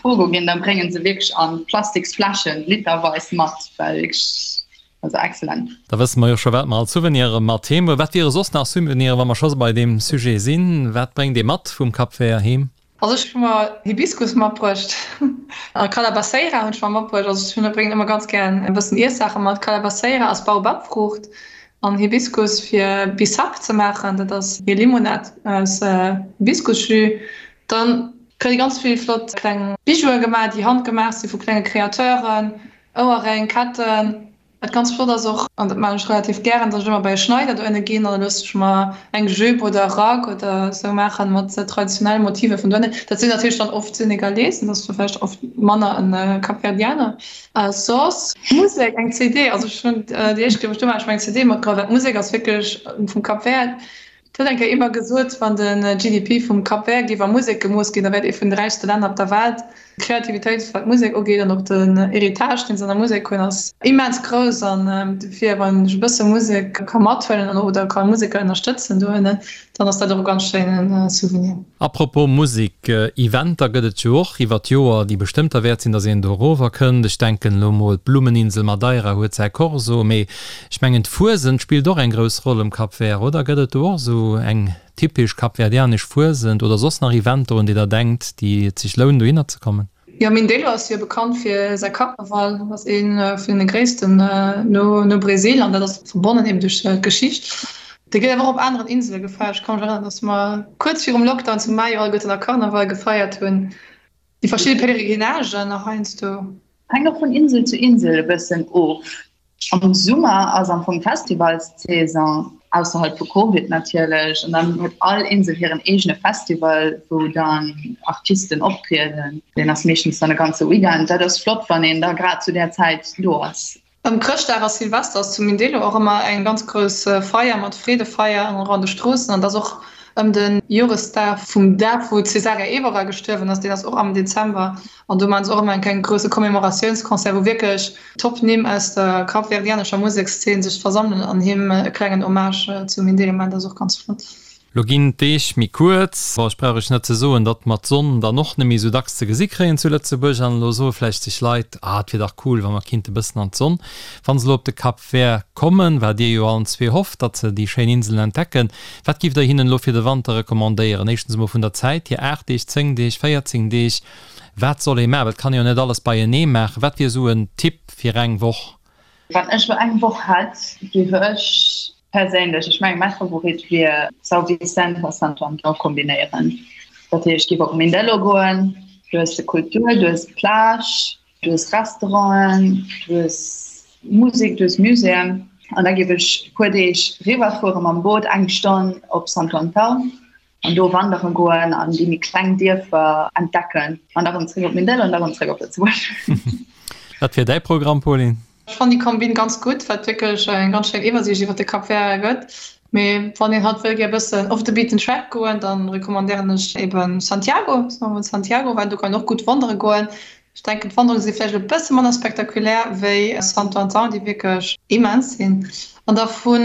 Fogo ginn, da bréngen se wierklech a plastiks Fläschen literweis mat, well wierklech, also excellent. Da wësse mer jo scho wat mer als Souvenire mat heem huelen. Wat wiere soss nach Souveniren, wa mer scho bei deem Sujet sinn? Wat bréngt ee mat vum Cap Vert heem? Also ech hu mer Hibiskus matbruecht a Calabaceira hunn ech mer matbruecht. Also ech hunn bréngen ëmmer ganz gären e bëssen Iessaache mat. Calabaceira ass Baobabfruucht an Hibiskus fir Bissap ze maachen, dat ass hir Limonad aus Hibiskusjus. Dann kréie ganz vill flott kleng Bijoue gemaach, déi handgemaach si vu klenge Kreateuren, Ouerréng, Ketten. Wat ganz flott ass och, an dat maachen ech relativ gären, dass ech ëmmer bei e Schneider dohinne ginn an da loosse ech mer eng Jupe oder e Rack oder esou maachen mat traditionelle Motiver vun dohinne. Dat sinn natierlech dann oft Senegalesen, dat ass da vläicht oft manner e Kapverdianer. A soss Musek, eng CD, also ech hunn déi éischt Kéier wou ech do war, hu ech mer eng CD matgeholl, well d'Musek ass wierklech vum Cap Vert. Et huet eng Kéier ee mer gesot, wann de GDP vum Cap Vert géif a Musek gemooss ginn, da wär et ee vun de räichste Länner op der Welt. D'Kreativitéit, wat d'Musek ugeet, an och den Héritage, deen se an der Musek hunn, ass immens grouss. An dofir, wann ech e bësse Musek ka mathuelen oder ka Museker ënnerstëtzen dohinne, dann ass dat och e ganz schéine Souvenir. Apropos Musek, Eventer gëtt et jo och iwwer d'Joer, déi bestëmmt derwäert sinn, datt een do erover kënnt. Ech denken elo mol, d'Blummeninsel Madeira huet säi Corso, mee Ech mengen d'Fuesent spillt och eng grouss Roll um Cap Vert, oder? Gëtt et do och esou eng typesch kapverdianesch Fuesent oder soss nach Eventer un déi der denkt, déi et sech lounen dohinner ze kommen? Jo, Mindelo ass jo bekannt fir säi Karneval, dat ass ee vun de gréissten no Bresil an dat ass verbonnen eben duerch d'Geschicht. Dee gëtt awer och op aneren Insele gefeiert. Ech ka mech erënneren, datt mer kuerz virum Lockdown zu Maio alleguerten nach Karneval gefeiert hunn. Déi verschidde Pèlerinagen nach heiansdo. Hänkt och vun Insel zu Insel e bëssen of. Am Summer ass am Fong Festivalssaison, ausserhalb vu Covid natierlech, an dann huet all Insel hiren eegene Festival, wou dann Artisten optrieden. Deen ass meeschtens dann e ganze Weekend. Dat ass flott, wann een da grad zu där Zäit do ass. Ëm Chrëschtdag a Silvester ass zu Mindelo och ëmmer eng ganz grouss Feier mat Freedefeier an och an de Stroossen. An et ass och ëm de Joresdag vum Dag, wou d'Cesaria Evora gestuerwen ass, deen ass och am Dezember. An do maachen se och ëmmer eng kleng grousse Commemoratiounsconcert, wou wierklech Top-Nimm aus der kapverdianescher Musekszeen sech versammelen an him e klengen Hommage zu Mindelo maachen. Dat ass och ganz flott. Lo ginn d'Deeg méi kuerz. Bon, ech brauch iech net ze soen, datt mer d'Sonn dann och net méi esou dacks ze gesi kréien zu Lëtzebuerg. An elo soe vläicht sech Leit, Ah, et wier dach cool, wa mer kinnte bëssen an d'Sonn. Wa se elo op de Cap Vert kommen, wat dir jo allen zwee hofft, datt se déi schéin Inselen entdecken, wat giff der hinnen elo fir de Wanter recommandéieren? Éischtens emol vun der Zäit hier, 8 Deeg, 10 Deeg, 14 Deeg, wat soll ee maachen? Well et kann ee jo net alles beienee maachen. Wat wier esou en Tipp fir eng Woch? Wann ech elo eng Woch hätt, géif ech Perséinlech, ech mengen mäi Favorit wier São Vicente a Santo Antão kombinéieren. Dat heescht, ech géif op Mindelo goen, du hues de Kultur, du hues d'Plage, du hues Restauranten, du hues Musek, du hues Muséeën an da géif ech e puer Deeg riwwerfuere mam Boot, eng Stonn op Santo Antão an do wandere goen an déi méi kleng Dierfer entdecken an da rëm zréck op Mindelo an da rëm zréck op Lëtzebuerg. Wat wier däi Programm, Pauline? Ech fannen déi Kombin ganz gutt, wat wierklech eng ganz schéin Iwwersiicht iwwer de Cap Vert gëtt. Mee wann een halt wëll gär bëssen off the beaten track goen, dann recommandéieren ech eben Santiago, soen mer mol Santiago, well do kann een och gutt wandere goen. Ech denken d'Wanderunge si vläicht e bësse manner spektakulär wéi Santo Antão, déi wierklech immens sinn. An da vu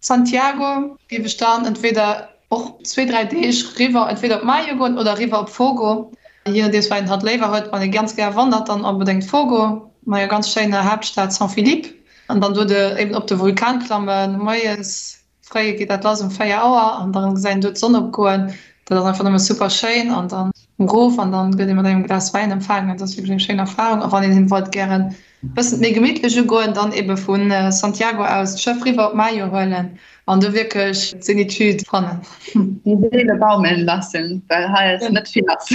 Santiago géif ech dann entweder Och zwee, dräi Deeg riwwer, entweder op Maio goen oder riwwer op Fogo, je nodeems wat een halt léiwer huet. Wann ee ganz gär wandert, dann onbedéngt Fogo, mat enger ganz schéiner Haaptstad San Filipe. An dann do de eben op de Vulkan klammen. Moies fréi geet dat lass um 4 Auer an dann gesäit een do d'Sonn opgoen. Dat ass einfach nëmme super schéin. An dann erof an dann gëtt ee mat engem Glas Wäin empfaangen. Dat ass wierklech eng schéin Erfarung. A wann een wollt gären bëssen méi gemittlech ugoen, dann ebe vu Santiago aus d'Schëff riwwer op Maio huelen an do wierklech d'Zenitude fannen. Die Seele baumeln lassen, well hei ass net vill lass.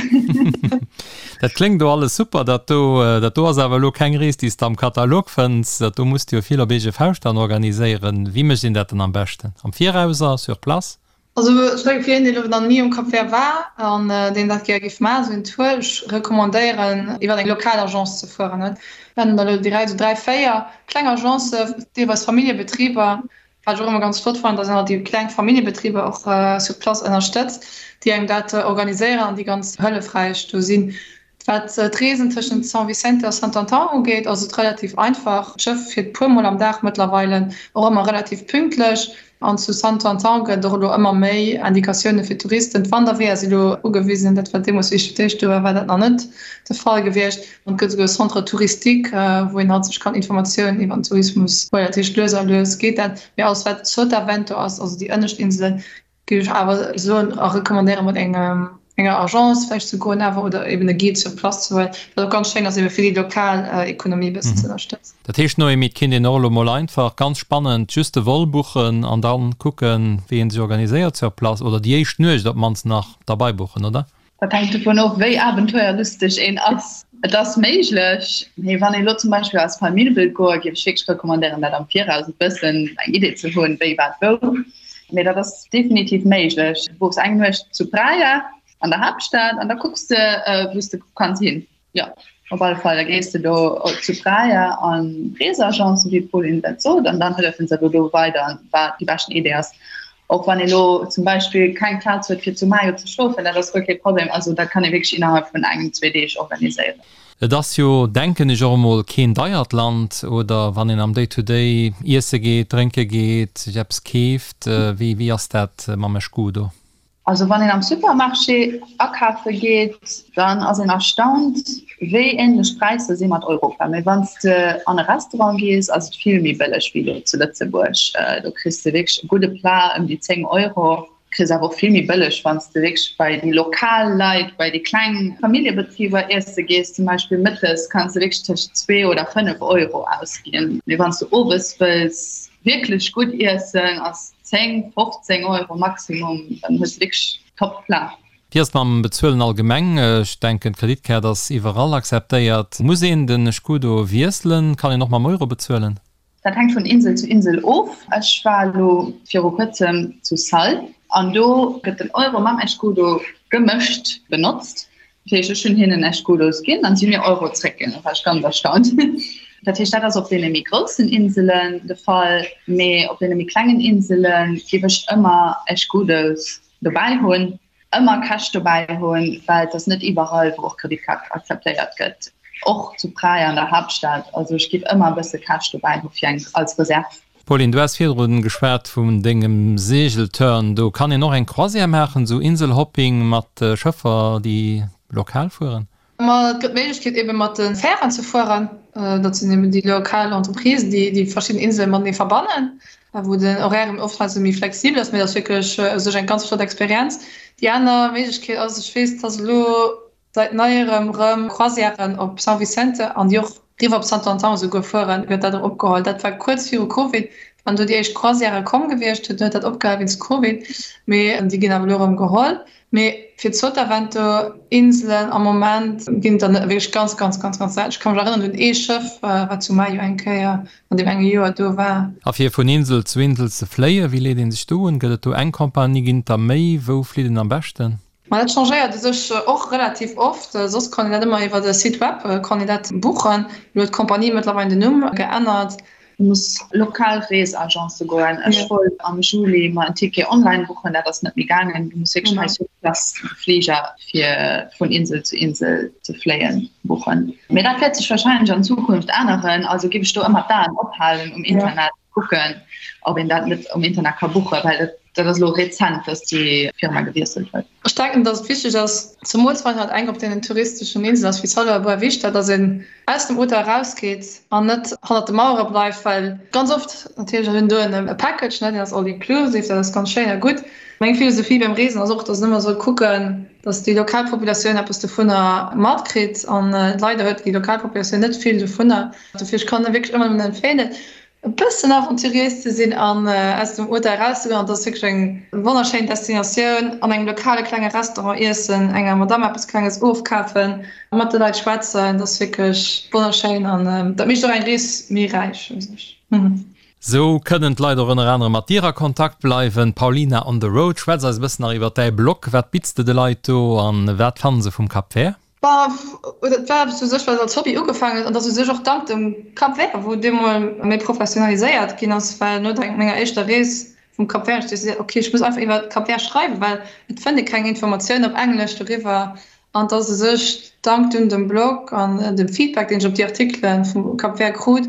Dat kléngt do alles super, dat do. Dat do ass awer elo keng Rees, déi s de am Katalog fënns. Dat do muss de jo vill op eege Fauscht dann organiséieren. Wéi mécht een dat dann am beschten? Am Viraus a sur place? Also ech mengen fir een deen elo nach ni um Cap Vert war an deen dat gär géif maachen, esou een Tour, ech recommandéieren iwwer eng lokal Agence ze fueren. Et nennen der elo direkt esou 3, 4 kleng Agencen, deelweis Familljebetriber, wat ech och ëmmer ganz flott fannen, dass een halt déi kleng Familljebetriber och sur place ënnerstëtzt, déi engem dat organiséieren an déi ganz hëllefräich do sinn. Wat d'Reesen tëschent São Vicente a Santo Antão ugeet, ass et relativ einfach. D'Schëff fiert puer mol am Dag mëttlerweile, och ëmmer relativ pünktlech. An zu Santo Antão gëtt et och elo ëmmer méi Indikatioune fir Touristen. D'Wanderweeër si elo ugewisen, dat war deemools, wéi ech fir d'éischt do war, war dat nach net de Fall gewiescht. An et gëtt esouguer e Centre touristique, wou een halt sech kann Informatiounen iwwer den Tourismus huelen. Dat heescht, lues a lues geet dat. Mee alles wat Sotavento ass, also déi ënnescht Inselen, Géif ech awer soen a recommandéieren mat engem enger Agence vläicht ze goen awer oder eben e Guide sur place ze huelen, wat och ganz schéin ass ebe fir déi lokal Ekonomie e bëssen ze ënnerstëtzen. Dat heescht Noémie, et kéint een och elo mol einfach, ganz spannend, just de Vol buchen an dann kucken wéi een sech organiséiert sur place oder déi éischt Nuecht op d'mannst nach derbei buchen, oder? Dat hänkt dovun of, wéi abenteuerlusteg een ass. Et ass méiglech, mee wann ee lo zum Beispill als Famill wëllt goen, géif ech wierklech recommandéieren, dat am Viraus e bëssen eng Idee ze hunn, wéi, wat, wou. Mee dat ass definitiv méiglech. Du buchs eng Nuecht zu Praia an der Haaptstad an da kucks de, wou s de kanns hin. Jo, op alle Fall. Da gees de do zu Praia an d'Reesagence, wéi d'Pauline dat sot, an dann hëllefen se der do weider, wat déi beschten Idee ass. Och wann ee lo zum Beispill keng Plaz huet fir zu Maio ze schlofen, dat ass guer kee Problem. Also dat kann ee wierklech innerhalb vun engem, zwee Deeg organiséieren. Et ass jo, denken ech, och emol keen deiert Land, oder? Wann een am Day-to-day iesse geet, drénke geet, sech eppes keeft, wéi wéi ass dat mam Escudo? Also wann een am Supermarché akafe geet, dann ass een erstaunt, wéi änlech d'Präisser si mat Europa. Mee wann s de an e Restaurant gees, ass et vill méi bëlleg wéi elo zu Lëtzebuerg. Do kriss de wierklech e gudde Plat ëm déi 10 Euro. Kriss awer och vill méi bëlleg, wann s de wierklech bei déi lokal Leit, bei déi kleng Familljebetriber iesse gees. Zum Beispill mëttes kanns de wierklech tëscht zwee oder 5 Euro ausginn. Mee wann s de owes wëlls wierklech gutt iessen, ass 10, 15 Euro Maximum, dann hues de wierklech top Plat. Wéi ass et mam Bezuelen allgemeng? Ech denken d'Kreditkaart ass iwwerall akzeptéiert. Muss een den Escudo wiesselen? Kann een och mam Euro bezuelen? Dat hänkt vun Insel zu Insel of. Ech war elo viru kuerzem zu Sal an do gëtt den Euro mam Escudo gemëscht benotzt. Dat heescht, ech hunn hinnen Escudos ginn an si hunn mir Euro zréckginn. Da war ech ganz erstaunt. Dat heescht, dat ass op deene méi groussen Inselen de Fall, mee op deene méi klengen Insele géif ech ëmmer Escudos dobäi hunn, ëmmer Cash dobäi hunn, well et ass net iwwerall, wou och Kreditkaart akzeptéiert gëtt, och zu Praia an der Haaptstad. Also ech géif ëmmer e bësse Cash dobäi hu fir eng als Reserve. Pauline, du has virdrun geschwat vun dengem Segelturn. Do kann een och eng Croisière maachen, esou Inselhopping mat Schëffer, déi lokal fueren? Ma et gëtt d'Méiglechkeet ebe mat de Fären ze fueren. Dat sinn eben déi lokal Entreprisen, déi déi verschidden Insele matenee verbannen, wou den Horaire eben oftmals méi flexibel ass. Mee dat ass wierklech u sech eng ganz flott Experienz. Déi aner Méiglechkeet ass, ech weess, dass elo Seit neierem rëm Croisièren op São Vicente an déi och riwwer op Santo Antão esouguer fueren, gëtt dat erëm opgeholl. Dat war kuerz viru Covid, wann do déi éischt Croisièrë komm gewiescht, huet huet dat opgehal wéinst Covid, mee déi ginn awer elo erëm geholl. Mee fir d'Sotavento Inselen am Moment ginn et der net, wierklech ganz, ganz, ganz, ganz selten. Ech ka mech erënneren un ee Schëff, wat zu Maio eng Kéier an deem enge Joer do war. A fir vun Insel zu Insel ze fléien, wéi leet ee sech do un? Gëtt et do eng Compagnie, ginn et der méi? Wou flitt een am beschten? Ma dat changéiert u sech och relativ oft. Soss kann een dat ëmmer iwwer e Site web kann een dat buchen. Elo huet d'Compagnie mëttlerweil den Numm geännert. Du muss lokal Reesagence goen. Ech wollt am Juli mer en Ticket online buchen, dat ass net méi gaangen. Du muss wierklech hei sur place de Fliger fir vun Insel zu Insel ze fléien buchen. Mee dat wäert sech warscheinlech an Zukunft änneren. Also giff ech do ëmmer d'Aen ophalen um Internet. Kucken ob een dat net um Internet ka buchen, well dat dat ass elo rezent, dass déi Firma gewiesselt huet. Ech denken, dass et wichteg ass, zemools wann een halt eng op deenen touristeschen Inselen ass wéi Sálvora Boa Vista, dass een aus dem Hotel erausgeet an net hannert de Mauere bleift, well ganz oft natierlech ass een do e Package, ne, deen ass all inclusive, dat ass ganz schéin a gutt. Meng Philosophie beim Reesen ass och, dass een ëmmer soll kucken, dass déi lokal Populatioun eppes dovunner matkritt an leider huet déi lokal Populatioun net vill dovunner. Dofir, ech kann wierklech ëmmer nëmmen empfehlen, e bëssen aventuriéis ze sinn an aus dem Hotel erauszegoen. An et ass wierklech eng wonnerschéin Destinatioun. An engem lokale klenge Restaurant iessen, enger Madamm eppes Klenges ofkafen, mat de Leit schwätzen, dat ass wierklech wonnerschéin an dat mécht och eng Rees méi räich u sech. Sou kënnen d'Leit och ënner anerem mat dir a Kontakt bleiwen. Paulina on the road, schwätz eis e bëssen nach iwwer däi Blog. Wat bitts de de Leit do an wat fannen se vum Cap Vert? Bah, dat war eppes u sech, wat als Hobby ugefaangen huet an dat u sech och dank dem Cap Vert, wou deemol méi professionaliséiert ginn ass, well no der menger éischter Rees vum Cap Vert ech decidéiert, ok, ech muss einfach iwwer Cap Vert schreiwen, well et fënnt ee keng Informatioun op Englesch doriwwer an dass u sech dank dunn dem Blog an dem Feedback, deen ech op déi Artikele vum Cap Vert krut,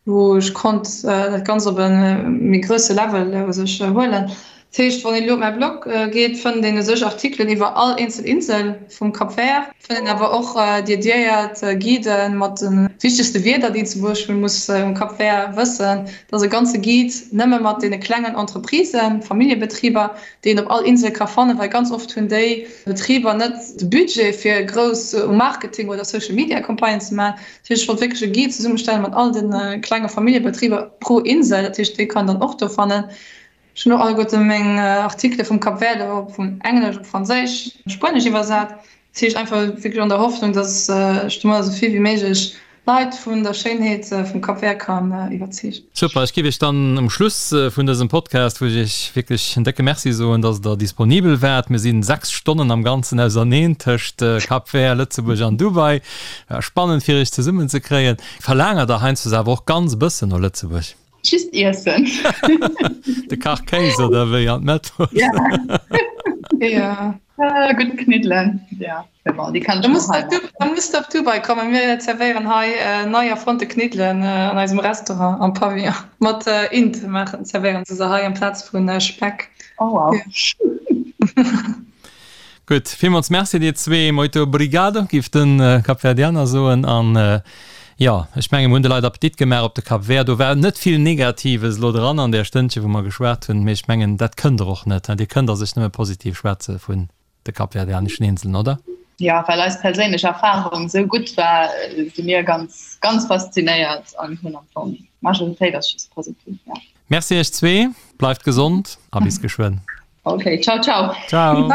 wou ech konnt dat Ganzt op e méi grousse Level u sech huelen. Dat heescht, wann een elo op mäi Blog geet, fënnt een u sech Artikelen iwwer all eenzel Insel vum Cap Vert, fënnt een awer och dediéiert Guiden mat de wichtegste Wierder, déi een zum Beispill muss um Cap Vert wëssen. Dat ass e ganze Guide nëmme mat deene klengen Entreprisen, Familljebetriber, déi een op all Insel ka fannen, well ganz oft hunn déi Betriber net de Budget, fir grouss um Marketing oder Social Media Campagnen ze maachen. Dat heescht, ech wollt wierklech e Guide zesummestellen mat all de klenge Familljebetriber pro Insel. Dat heescht, déi kann een dann och do fannen. Ech hunn och alleguerte meng Artikele vum Cap Verde op vun Englesch op Franséisch, Spuenesch iwwersat. Dat heescht einfach wierklech an der Hoffnung, datt ech domadder esou vill wéi méiglech Leit vun der Schéinheet vum Cap Vert kann iwwerzeegen. Super, ech giff iech dann um Schluss vun dësem Podcast, wou ech iech wierklech en décke Merci soen, dass der disponibel waart. Mir sinn 6 Stonnen am Ganzen auserneen tëscht Cap Vert, Lëtzebuerg an Dubai. War spannend fir iech zesummen ze kréien. Verlaangert der heiansdo awer och ganz e bëssen no Lëtzebuerg? Just iessen. De Kach Kéis oder wéi an d'Mettwurst? Ja. Ja. Äh, gutt Kniddelen. Ja, mais bon, déi kann ech mir hei maachen. Da muss de op Dubai kommen, mir zerwéieren hei nei erfonnte Kniddelen an eisem Restaurant am Pavillon. Mat Int maachen, zerwéieren se se hei amplaz vu Speck. Oh wow. Gutt, villmools Merci dir zwee. Moito obrigado, giff de Kapverdianer soen. An jo, ech menge mir hunn de Leit Appetit gemaach op de Cap Vert. Do war net vill Negatives elo dran an där Stënnche wou mer geschwat hunn, mee ech mengen dat kënnt der och net. Dir kënnt a sech nëmme positiv schwätze vun de kapverdianeschen Inseln, oder? Jo, well eis perséinlech Erfarung esou gutt war, si mir ganz, ganz faszinéiert an hunn am Fong, d'Majoritéit ass just positiv, jo. Merci iech zwee, bleift gesond a bis geschwënn. Okay, ciao, ciao. Ciao.